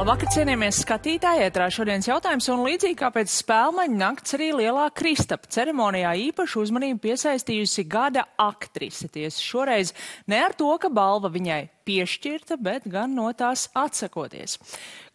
Labvakar, cienījamies skatītāji, ētrā šodienas jautājums, un līdzīgi kā pēc Spēlmaņa nakts arī Lielā Kristapa ceremonijā īpašu uzmanību piesaistījusi gada aktrise. Tiesa šoreiz ne ar to, ka balva viņai piešķirta, bet gan no tās atsakoties.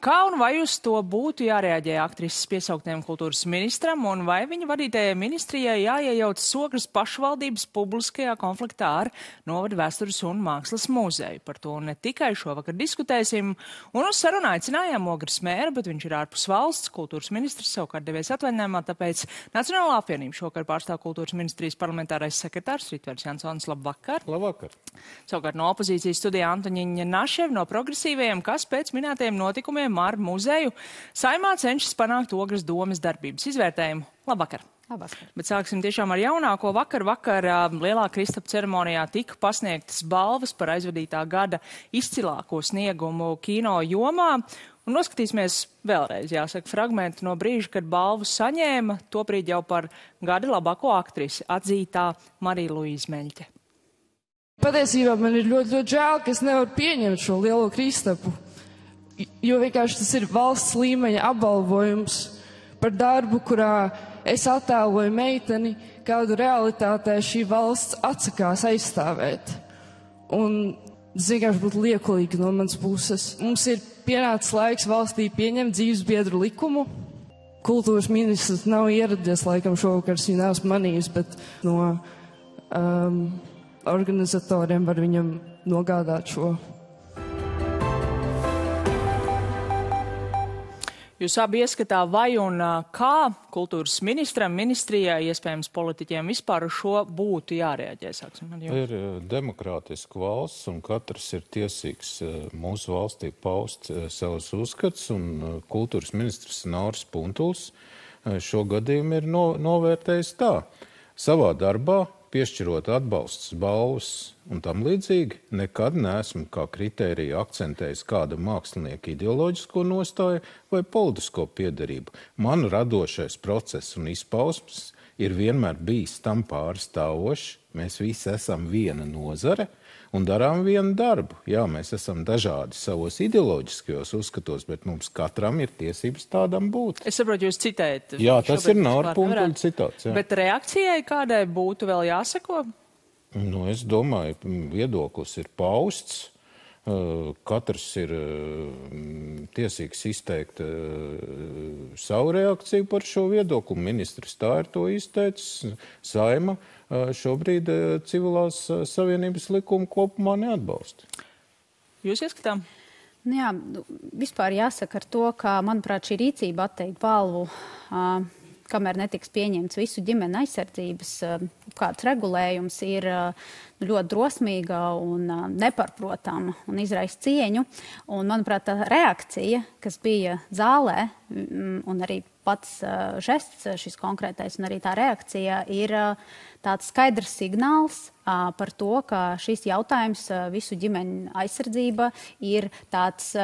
Kā un vai uz to būtu jārēģē aktrises piesauktiem kultūras ministram, un vai viņa vadītajai ministrijai jāiejauc Sogras pašvaldības publiskajā konfliktā ar Novada vēstures un mākslas muzeju? Par to ne tikai šovakar diskutēsim, un uz sarunu aicinājām Ogres mēru, bet viņš ir ārpus valsts, kultūras ministrs savukārt devies atvaļinājumā, tāpēc Nacionālā apvienība šovakar pārstāv kultūras ministrijas parlamentārais sekretārs Ritvērs Jansons. Labvakar! Labvakar! Savukārt no opozīcijas studijā Antoņiņa Naševa no progresīvajiem, kas pēc minētajiem notikumiem ar muzeju Saeimā cenšas panākt Ogres domes darbības izvērtējumu. Labvakar! Labvakar! Bet sāksim tiešām ar jaunāko. Vakar Lielā Kristapa ceremonijā tika pasniegtas balvas par aizvadītā gada izcilāko sniegumu kino jomā. Un noskatīsimies vēlreiz, jāsaka, fragmentu no brīža, kad balvu saņēma tobrīd jau par gada labāko aktrisi atzītā Marija Luīza Meļķe. Patiesībā man ir ļoti žēl, ka es nevaru pieņemt šo Lielo Kristapu, jo vienkārši tas ir valsts līmeņa apbalvojums par darbu, kurā es attēloju meiteni, kādu realitātē šī valsts atsakās aizstāvēt. Un tas vienkārši būtu liekulīgi no manas puses. Mums ir pienācis laiks valstī pieņemt dzīvesbiedru likumu. Kultūras ministrs nav ieradies, laikam šovakar es viņu neesmu manījis, bet no organizatoriem var viņam nogādāt šo. Jūs abi ieskatā vai un kā kultūras ministram, ministrijai, iespējams politiķiem vispār uz šo būtu jārēģē? Ir demokrātiska valsts un katrs ir tiesīgs mūsu valstī paust savus uzskats, un kultūras ministrs Nauris Puntuls šo gadījumu ir novērtējis tā. Savā darbā, piešķirot atbalsts, balvas un tam līdzīgi, nekad neesmu kā kritēriju akcentējis kāda mākslinieka ideoloģisko nostāju vai politisko piederību. Man radošais process un izpausmes ir vienmēr bijis tam pārstāvošs. Mēs visi esam viena nozare un darām vienu darbu. Jā, mēs esam dažādi savos ideoloģiskajos uzskatos, bet mums katram ir tiesības tādam būt. Es saprotu, jūs citējat. Jā, tas ir Naura Puntuļa citāts. Jā. Bet reakcijai kādai būtu vēl jāsako? Nu, es domāju, viedoklis ir pausts. Katrs ir tiesīgs izteikt savu reakciju par šo viedokli. Ministrs tā ir to izteicis. Saeima šobrīd civilās savienības likumu kopumā neatbalsta. Jūs ieskatām? Jā, vispār jāsaka ar to, ka, manuprāt, šī rīcība atteikt balvu, kamēr netiks pieņemts visu ģimeni aizsardzības kāds regulējums, ir ļoti drosmīga un neparprotama un izraisa cieņu. Un, manuprāt, tā reakcija, kas bija zālē, un arī pats žests, šis konkrētais, un arī tā reakcija ir tāds skaidrs signāls par to, ka šis jautājums visu ģimeņu aizsardzība ir tāds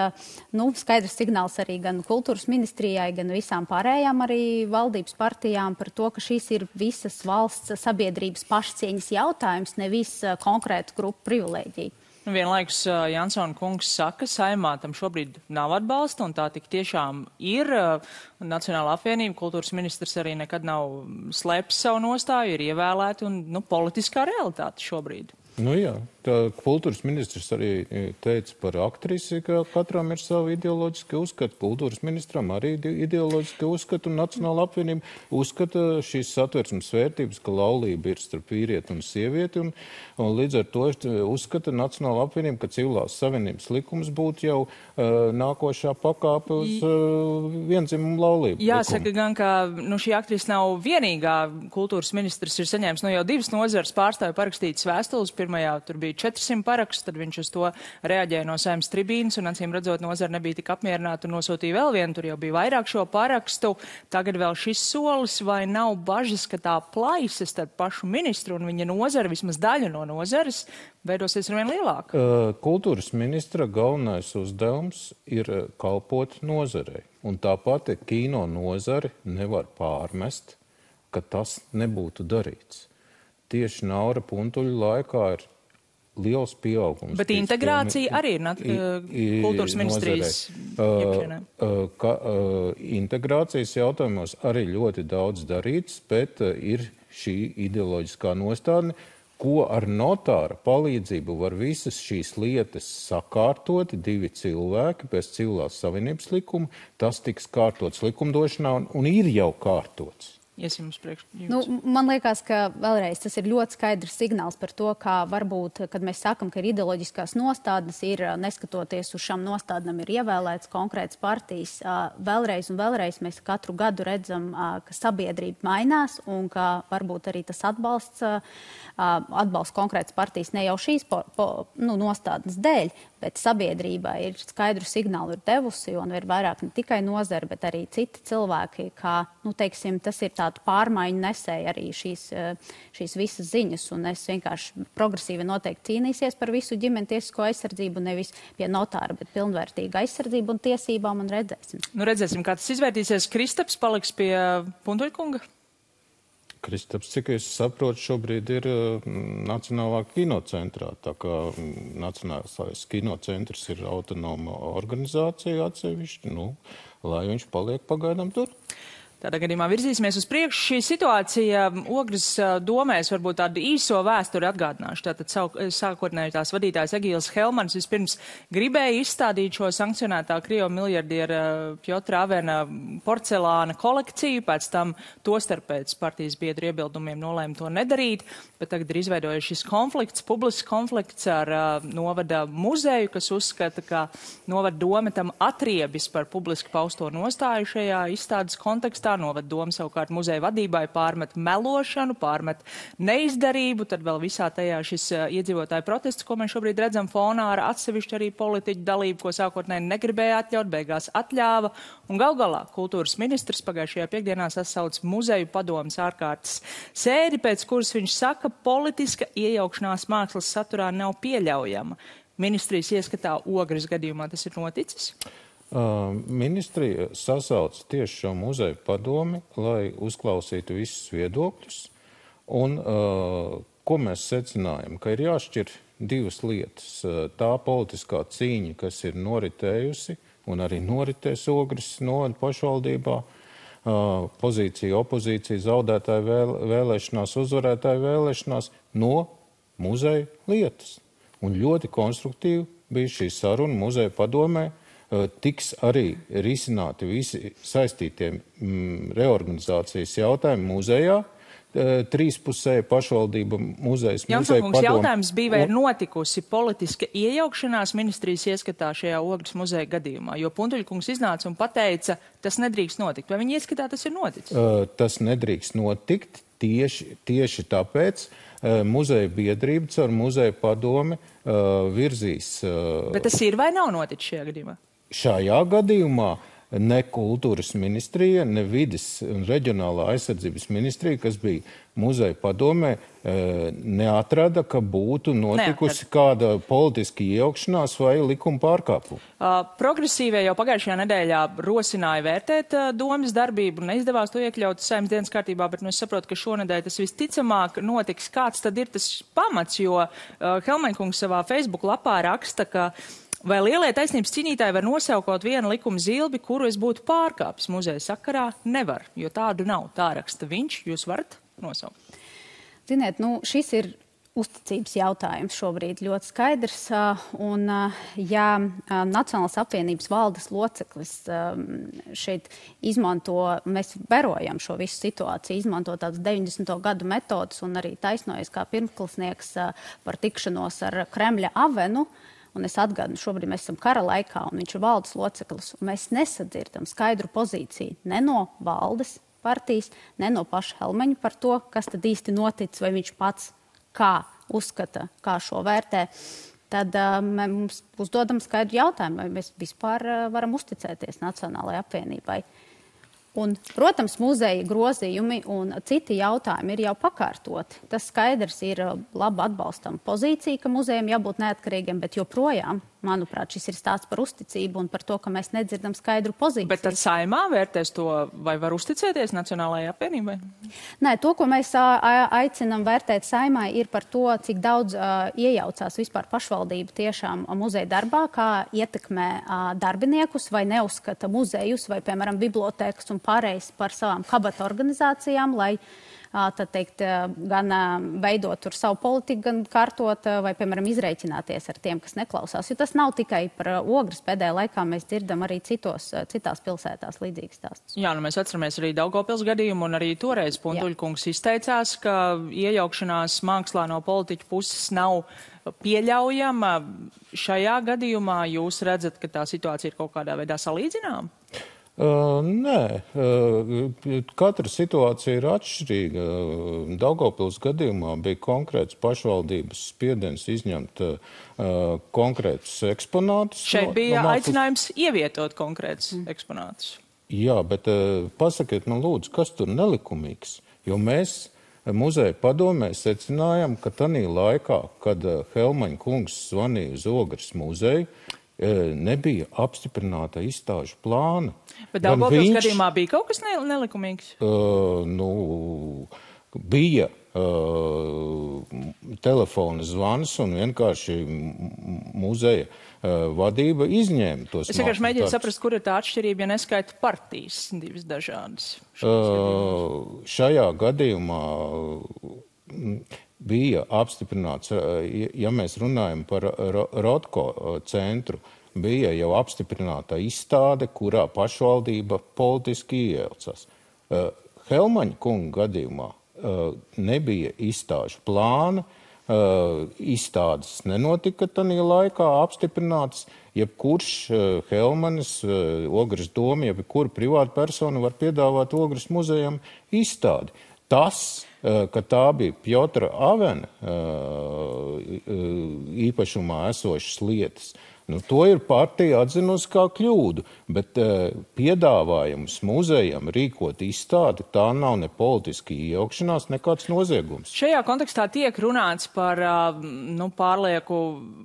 skaidrs signāls arī gan kultūras ministrijai, gan visām pārējām arī valdības partijām par to, ka šis ir visas valsts sabiedrības pašcieņas jautājums, nevis konkrētu grupu privilēģiju. Vienlaikus Jansona kungs saka, Saeimā tam šobrīd nav atbalsta, un tā tik tiešām ir. Nacionālā apvienība, kultūras ministrs arī nekad nav slēpis savu nostāju, ir ievēlēti un politiskā realitāte šobrīd. Nu jā, tā kultūras ministrs arī teica par aktrisi, ka katram ir savi ideoloģiski uzskati. Kultūras ministram arī ideoloģiski uzskati, un Nacionāla apvienība uzskata šīs satversmes vērtības, ka laulība ir starp vīrieti un sievieti, un līdz ar to uzskata Nacionāla apvienība, ka civilās savienības likums būtu jau nākošā pakāpe uz viendzimumu laulību. Jāsaka gan, ka šī aktrise nav vienīgā. Kultūras ministrs ir saņēmis jau 2 nozares pārstāvju parakstītas vēstules. Pirmajā tur bija 400 parakstu, tad viņš uz to reaģēja no Saeimas tribīnas, un acīm redzot, nozara nebija tik apmierināta un nosūtīja vēl vienu, tur jau bija vairāk šo parakstu. Tagad vēl šis solis, vai nav bažas, ka tā plaisa starp pašu ministru un viņa nozara, vismaz daļa no nozares, veidosies arvien lielāka? Kultūras ministra galvenais uzdevums ir kalpot nozarei, un tāpat kino nozari nevar pārmest, ka tas nebūtu darīts. Tieši Naura Puntuļa laikā ir liels pieaugums. Bet integrācija arī ir kultūras ministrijas iekšienē. Integrācijas jautājumos arī ļoti daudz darīts, bet ir šī ideoloģiskā nostādne, ko ar notāra palīdzību var visas šīs lietas sakārtot, 2 cilvēki pēc civilās savienības likuma, tas tiks kārtots likumdošanā un ir jau kārtots. Man liekas, ka vēlreiz tas ir ļoti skaidrs signāls par to, kā varbūt, kad mēs sakam, ka ir ideoloģiskās nostādnes, ir neskatoties uz šām nostādnēm, ir ievēlēts konkrēts partijas. Vēlreiz un vēlreiz mēs katru gadu redzam, ka sabiedrība mainās un ka varbūt arī tas atbalsts konkrētas partijas ne jau šīs nostādnes dēļ, bet sabiedrībā ir skaidru signālu ir devusi un ir vairāk ne tikai nozara, bet arī citi cilvēki, kā, teiksim, tas ir tādu pārmaiņu nesēja arī šīs visas ziņas, un es vienkārši progresīvi noteikti cīnīsies par visu ģimeni tiesisko aizsardzību, nevis pie notāra, bet pilnvērtīgu aizsardzību un tiesībām, un redzēsim. Redzēsim, kā tas izvērtīsies. Kristaps paliks pie Puntuļkunga? Kristaps, cik es saprotu, šobrīd ir Nacionālā kinocentrā, tā kā Nacionālais kinocentrs ir autonoma organizācija atsevišķi, lai viņš paliek pagaidām tur. Tādā gadījumā virzīsimies uz priekšu. Šī situācija Ogres domēs varbūt tādu īso vēsturi atgādināšu. Tātad sākotnēji tās vadītājs Egīls Helmans vispirms gribēja izstādīt šo sankcionētā Krievu miljardiera Pjotra Avena porcelāna kolekciju, pēc tam tostarp pēc partijas biedru iebildumiem nolēma to nedarīt, bet tagad ir izveidojies šis konflikts, publisks konflikts ar novada muzeju, kas uzskata, ka novada dome tam atriebis par publiski pausto nostāju šajā izstādes kontekstā. Novada doma savukārt muzeja vadībai pārmet melošanu, pārmet neizdarību, tad vēl visā tajā šis iedzīvotāju protests, ko mēs šobrīd redzam fonā ar atsevišķu arī politiķu dalību, ko sākotnēji negribēja atļaut, beigās atļāva. Un gal galā kultūras ministrs pagājušajā piekdienā sasauc muzeju padomes ārkārtas sēdi, pēc kuras viņš saka, politiska iejaukšanās mākslas saturā nav pieļaujama. Ministrijas ieskatā Ogres gadījumā tas ir noticis? Ministrija sasauc tieši šo muzeju padomi, lai uzklausītu visus viedokļus. Un ko mēs secinājam? Ka ir jāšķir 2 lietas. Tā politiskā cīņa, kas ir noritējusi un arī noritēs Ogres novada pašvaldībā, pozīcija, opozīcija, zaudētāju vēlēšanās, uzvarētāju vēlēšanās no muzeja lietas. Un ļoti konstruktīvi bija šī saruna muzeja padomē. Tiks arī risināti visi saistītie reorganizācijas jautājumi muzejā, 3-pusēja pašvaldība muzejas, muzeja padome. Jautājums bija, vai ir notikusi politiska iejaukšanās ministrijas ieskatā šajā Ogres muzeja gadījumā, jo Puntuļkungs iznāca un pateica, tas nedrīkst notikt. Vai viņa ieskatā tas ir noticis? Tas nedrīkst notikt tieši tāpēc. Muzeja biedrība caur muzeja padomi virzīs. Bet tas ir vai nav noticis šajā gadījumā? Šajā gadījumā ne kultūras ministrija, ne vides un reģionālā aizsardzības ministrija, kas bija muzeja padomē, neatrada, ka būtu notikusi kāda politiska iejaukšanās vai likuma pārkāpuma. Progresīvie jau pagājušajā nedēļā rosināja vērtēt domas darbību, neizdevās to iekļaut Saeimas dienas kārtībā, bet es saprotu, ka šonedēļ tas visticamāk notiks. Kāds tad ir tas pamats, jo Helmeņkungs savā Facebook lapā raksta, ka vai lielie taisnības cīnītāji var nosaukot vienu likuma zilbi, kuru es būtu pārkāpis muzeja sakarā? Nevar, jo tādu nav. Tā raksta viņš, jūs varat nosaukt. Ziniet, šis ir uzticības jautājums šobrīd ļoti skaidrs. Un, ja Nacionālās apvienības valdes loceklis šeit izmanto, mēs vērojam šo visu situāciju, izmanto tādas 90. gadu metodas un arī taisnojas kā pirmklasnieks par tikšanos ar Kremļa avenu. Un es atgādinu, šobrīd mēs esam kara laikā, un viņš ir valdes loceklis, un mēs nesadzirdam skaidru pozīciju ne no valdes partijas, ne no paša Helmeņa par to, kas tad īsti notic, vai viņš pats kā uzskata, kā šo vērtē. Tad mums uzdodam skaidru jautājumu, vai mēs vispār varam uzticēties Nacionālajai apvienībai. Un, protams, muzeja grozījumi un citi jautājumi ir jau pakārtoti. Tas skaidrs ir labi atbalstam pozīcija, ka muzejam jābūt neatkarīgiem, bet joprojām manuprāt, šis ir stāsts par uzticību un par to, ka mēs nedzirdam skaidru pozīciju. Bet tad Saeimā vērtēs to, vai var uzticēties Nacionālajai apvienībai? Nē, to, ko mēs aicinam vērtēt Saeimā, ir par to, cik daudz iejaucās vispār pašvaldība tiešām muzeja darbā, kā ietekmē darbiniekus vai neuzskata muzejus vai, piemēram, bibliotēkas un pārējais par savām kabata organizācijām, lai tad teikt, gan veidot tur savu politiku, gan kārtot vai, piemēram, izreikināties ar tiem, kas neklausās. Jo tas nav tikai par Ogres, pēdējā laikā mēs dzirdam arī citās pilsētās līdzīgas stāstus. Jā, nu mēs atceramies arī Daugavpils gadījumu, un arī toreiz Puntuļkungs izteicās, ka iejaukšanās mākslā no politiķu puses nav pieļaujama. Šajā gadījumā jūs redzat, ka tā situācija ir kaut kādā veidā salīdzināma? Nē, katra situācija ir atšķirīga. Daugavpils gadījumā bija konkrēts pašvaldības spiediens izņemt konkrētus eksponātus. Šeit bija aicinājums ievietot konkrētus eksponātus. Jā, bet pasakiet man lūdzu, kas tur nelikumīgs? Jo mēs muzeja padomē secinājām, ka tanī laikā, kad Helmaņa kungs zvanīja uz Ogres muzeju, nebija apstiprināta izstāžu plāna. Bet Daugavpils gadījumā bija kaut kas nelikumīgs? Bija telefona zvans un vienkārši muzeja vadība izņēma tos. Es vienkārši mēģinu saprast, kur ir tā atšķirība, ja neskaita partijas divas dažādas. Šajā gadījumā bija apstiprināts, ja mēs runājam par Rotko centru, bija jau apstiprināta izstāde, kurā pašvaldība politiski iejaucās. Helmaņa kunga gadījumā nebija izstāžu plāna, izstādes nenotika tanī laikā apstiprinātas, jebkurš Helmanis, Ogres doma, jebkura privāta persona var piedāvāt Ogres muzejam izstādi. Tas, ka tā bija Pjotra Avena īpašumā esošas lietas, to ir partija atzinusi kā kļūdu, bet piedāvājums muzejam rīkot izstādi, tā nav ne politiski iejaukšanās, nekāds noziegums. Šajā kontekstā tiek runāts par pārlieku,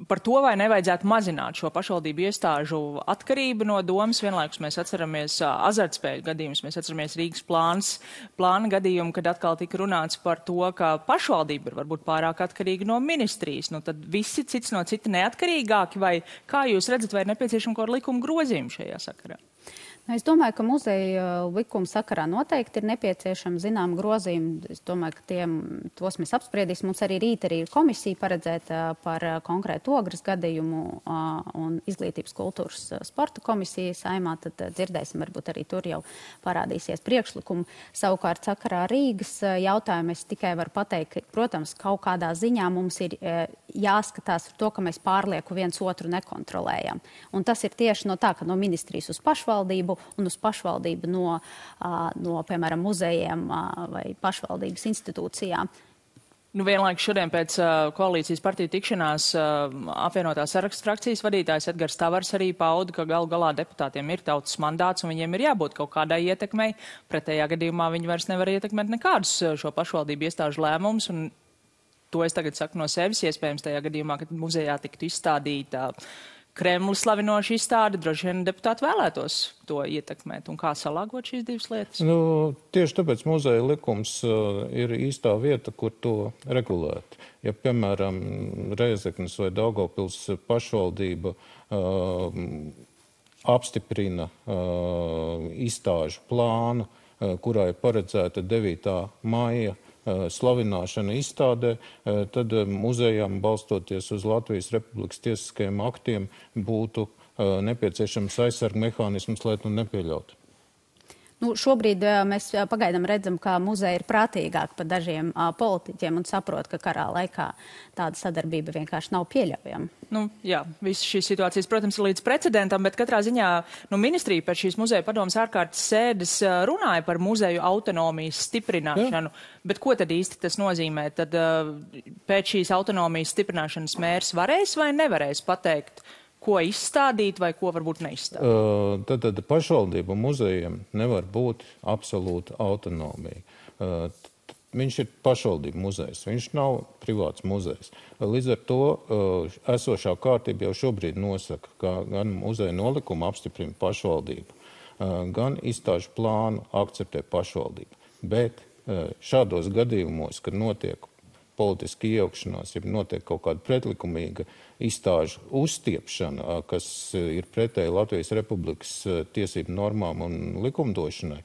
par to, vai nevajadzētu mazināt šo pašvaldību iestāžu atkarību no domas. Vienlaikus mēs atceramies azartspēļu gadījumus, mēs atceramies Rīgas plāna gadījumu, kad atkal tika runāts par to, ka pašvaldība ir varbūt pārāk atkarīga no ministrijas. Tad visi cits no cita neatkarīgāki, vai kā jūs redzat, vai ir nepieciešama kaut kāda likuma grozījuma šajā sakarā? Es domāju, ka muzeja likuma sakarā noteikti ir nepieciešama zinām grozījuma. Es domāju, ka tos mēs apspriedīsim. Mums arī rīt ir komisija paredzēta par konkrētu Ogres gadījumu un izglītības kultūras sporta komisija Saeimā. Tad dzirdēsim, varbūt arī tur jau parādīsies priekšlikumu. Savukārt sakarā Rīgas jautājumu es tikai varu pateikt, ka, protams, kaut kādā ziņā mums ir jāskatās ar to, ka mēs pārlieku viens otru nekontrolējam. Un tas ir tieši no ministrijas uz pašvaldību un uz pašvaldību no piemēram, muzejiem vai pašvaldības institūcijām. Vienlaikus šodien pēc koalīcijas partiju tikšanās apvienotās sarakstu frakcijas vadītājs Edgars Tavars arī pauda, ka galu galā deputātiem ir tautas mandāts un viņiem ir jābūt kaut kādai ietekmei. Pretējā gadījumā viņi vairs nevar ietekmēt nekādus šo pašvaldību iestāžu lēmumus. Un to es tagad saku no sevis, iespējams tajā gadījumā, kad muzejā tiktu izstādīta Kremli slavinoša izstāde, droši vien deputāti vēlētos to ietekmēt. Un kā salāgot šīs divas lietas? Tieši tāpēc muzeja likums ir īstā vieta, kur to regulēt. Ja, piemēram, Rēzeknes vai Daugavpils pašvaldība apstiprina izstāžu plānu, kurā ir paredzēta 9. maija slavināšana izstādē, tad muzejām, balstoties uz Latvijas Republikas tiesiskajiem aktiem, būtu nepieciešams aizsarga mehānisms, lai to nepieļautu. Šobrīd mēs pagaidām redzam, ka muzeja ir prātīgāk par dažiem politiķiem un saprot, ka karā laikā tāda sadarbība vienkārši nav pieļaujama. Jā, visas šīs situācijas, protams, ir līdz precedentam, bet katrā ziņā ministrija pēc šīs muzeja padomas ārkārtas sēdes runāja par muzeju autonomijas stiprināšanu. Bet ko tad īsti tas nozīmē? Tad pēc šīs autonomijas stiprināšanas mērs varēs vai nevarēs pateikt, ko izstādīt vai ko varbūt neizstādīt? Tad pašvaldību muzejiem nevar būt absolūta autonomija. viņš ir pašvaldību muzejs, viņš nav privāts muzejs. Līdz ar to esošā kārtība jau šobrīd nosaka, ka gan muzeja nolikuma apstiprina pašvaldība, gan izstāžu plānu akceptē pašvaldība. Bet šādos gadījumos, kad notiek politiski iejaukšanās, ja notiek kaut kāda pretlikumīga izstāžu uzstiepšana, kas ir pretēji Latvijas Republikas tiesību normām un likumdošanai,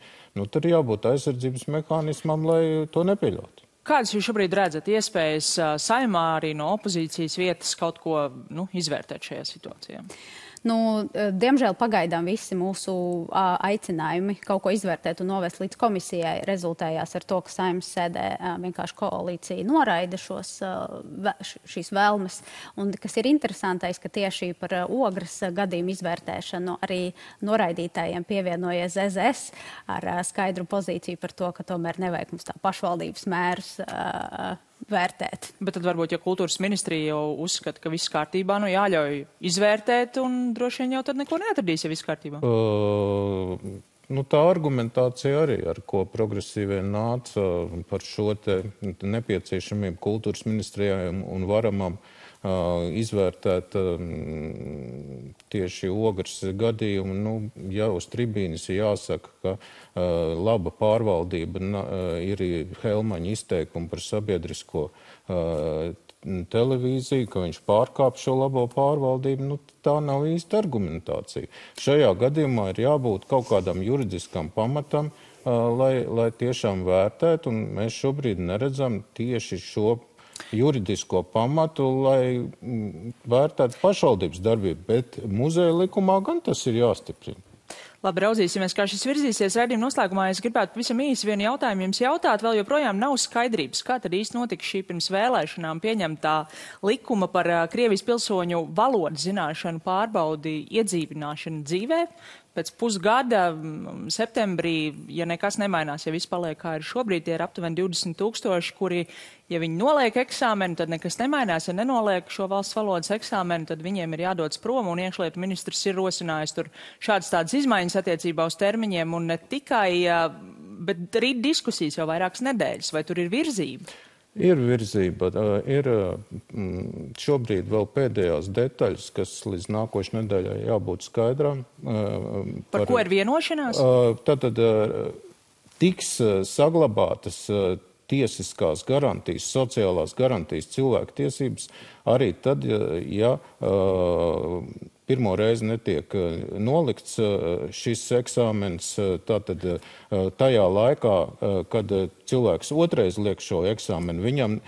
tad jābūt aizsardzības mehānismam, lai to nepieļautu. Kādas jūs šobrīd redzat iespējas Saeimā arī no opozīcijas vietas kaut ko izvērtēt šajā situācijā? Diemžēl pagaidām visi mūsu aicinājumi kaut ko izvērtēt un novest līdz komisijai rezultējās ar to, ka Saeimas sēdē vienkārši koalīcija noraida šīs vēlmes. Un kas ir interesantais, ka tieši par Ogres gadījumu izvērtēšanu arī noraidītājiem pievienojies ZZS ar skaidru pozīciju par to, ka tomēr nevajag mums tā pašvaldības mērus vērtēt. Bet tad varbūt, ja kultūras ministrija jau uzskata, ka viss kārtībā, jāļauj izvērtēt un droši vien jau tad neko neatradīs, ja viss kārtībā. Tā argumentācija arī, ar ko progresīvie nāca par šo te nepieciešamību kultūras ministrijai un varamam izvērtēt tieši Ogres gadījumu. Ja uz tribīnes jāsaka, ka laba pārvaldība ir Helmaņa izteikumi par sabiedrisko televīziju, ka viņš pārkāp šo labo pārvaldību, tā nav īsta argumentācija. Šajā gadījumā ir jābūt kaut kādam juridiskam pamatam, lai tiešām vērtētu, un mēs šobrīd neredzam tieši šo juridisko pamatu, lai vērtētu pašvaldības darbību, bet muzeja likumā gan tas ir jāstiprina. Labi, raudzīsimies, kā šis virzīsies. Raidījuma noslēgumā es gribētu pavisam īsi vienu jautājumu jums jautāt. Vēl joprojām nav skaidrības, kā tad īsti notika šī pirms vēlēšanām pieņemtā likuma par Krievijas pilsoņu valodas zināšanu pārbaudi iedzīvināšanu dzīvē. Pēc pusgada, septembrī, ja nekas nemainās, ja viss paliek kā ir šobrīd, tie ir aptuveni 20,000, kuri, ja viņi noliek eksāmenu, tad nekas nemainās. Ja nenoliek šo valsts valodas eksāmenu, tad viņiem ir jādodas prom, un iekšlietu ministrs ir rosinājis tur šādas tādas izmaiņas attiecībā uz termiņiem, un ne tikai, bet arī diskusijas jau vairākas nedēļas. Vai tur ir virzība? Ir virzība. Ir šobrīd vēl pēdējās detaļas, kas līdz nākošais nedēļai jābūt skaidrām. Par ko ir vienošanās? Tātad tiks saglabātas tiesiskās garantijas, sociālās garantijas, cilvēku tiesības arī tad, ja pirmo reizi netiek nolikts šis eksāmens, tātad tajā laikā, kad cilvēks otrais liek šo eksāmenu, viņam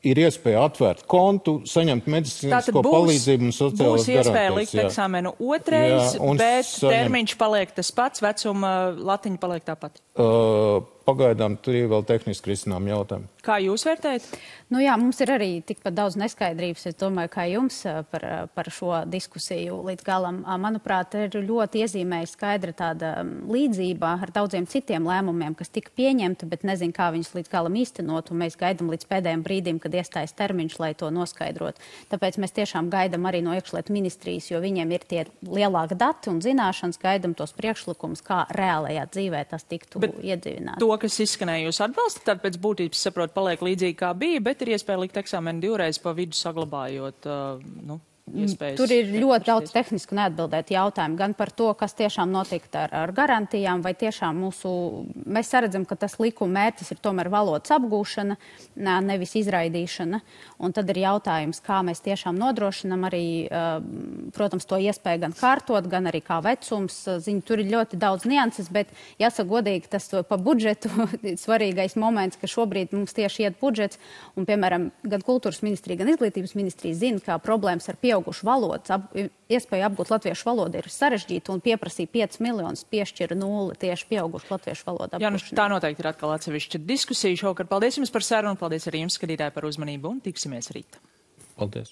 ir iespēja atvērt kontu, saņemt medicīnisko palīdzību un sociālās garantijas. Būs iespēja likt eksāmenu otrais, bet termiņš paliek tas pats, vecuma latiņa paliek tāpat. Pagaidām tur ir vēl tehniski risinām jautājumi. Kā jūs vērtējat? Jā, mums ir arī tikpat daudz neskaidrības, es domāju, kā jums par šo diskusiju līdz galam. Manuprāt, ir ļoti iezīmēja skaidra tāda līdzība ar daudziem citiem lēmumiem, kas tika pieņemti, bet nezinu, kā viņus līdz galam īstenot, un mēs gaidam līdz pēdējiem brīdim, kad iestājas termiņš, lai to noskaidrot. Tāpēc mēs tiešām gaidam arī no iekšlietu ministrijas, jo viņiem ir tie lielāki dati un zināšanas, gaidam tos priekšlikumus, kā reālajā dzīvē tas tiktu iedzīvināts. To, kas izskanēja, jūs atbalstat, tad pēc būtības, saprot, paliek līdzīgi kā bija, bet ir iespēja likt eksāmenu divreiz pa vidu saglabājot, iespējas. Tur ir ļoti daudz tehnisku neatbildētu jautājumu, gan par to, kas tiešām notikt ar garantijām, vai tiešām mēs saredzam, ka tas likuma mērķis ir tomēr valodas apgūšana, nevis izraidīšana. Un tad ir jautājums, kā mēs tiešām nodrošinam arī, protams, to iespēju gan kārtot, gan arī kā vecums. Tur ir ļoti daudz nianses, bet jāsaka godīgi, tas pa budžetu svarīgais moments, ka šobrīd mums tieši iet budžets, un, piemēram, gan kultūras ministrija, gan izglītības ministrija zina, kā problēmas ar pieaugušu valodas, iespēja apgūt latviešu valodu ir sarežģīta un pieprasīja 5 miljonus, piešķira 0 tieši pieaugušu latviešu valodu apgūšanu. Tā noteikti ir atkal atsevišķa diskusija šovakar. Paldies jums par sarunu, paldies arī jums, skatītāji, par uzmanību un tiksimies rīt. Paldies.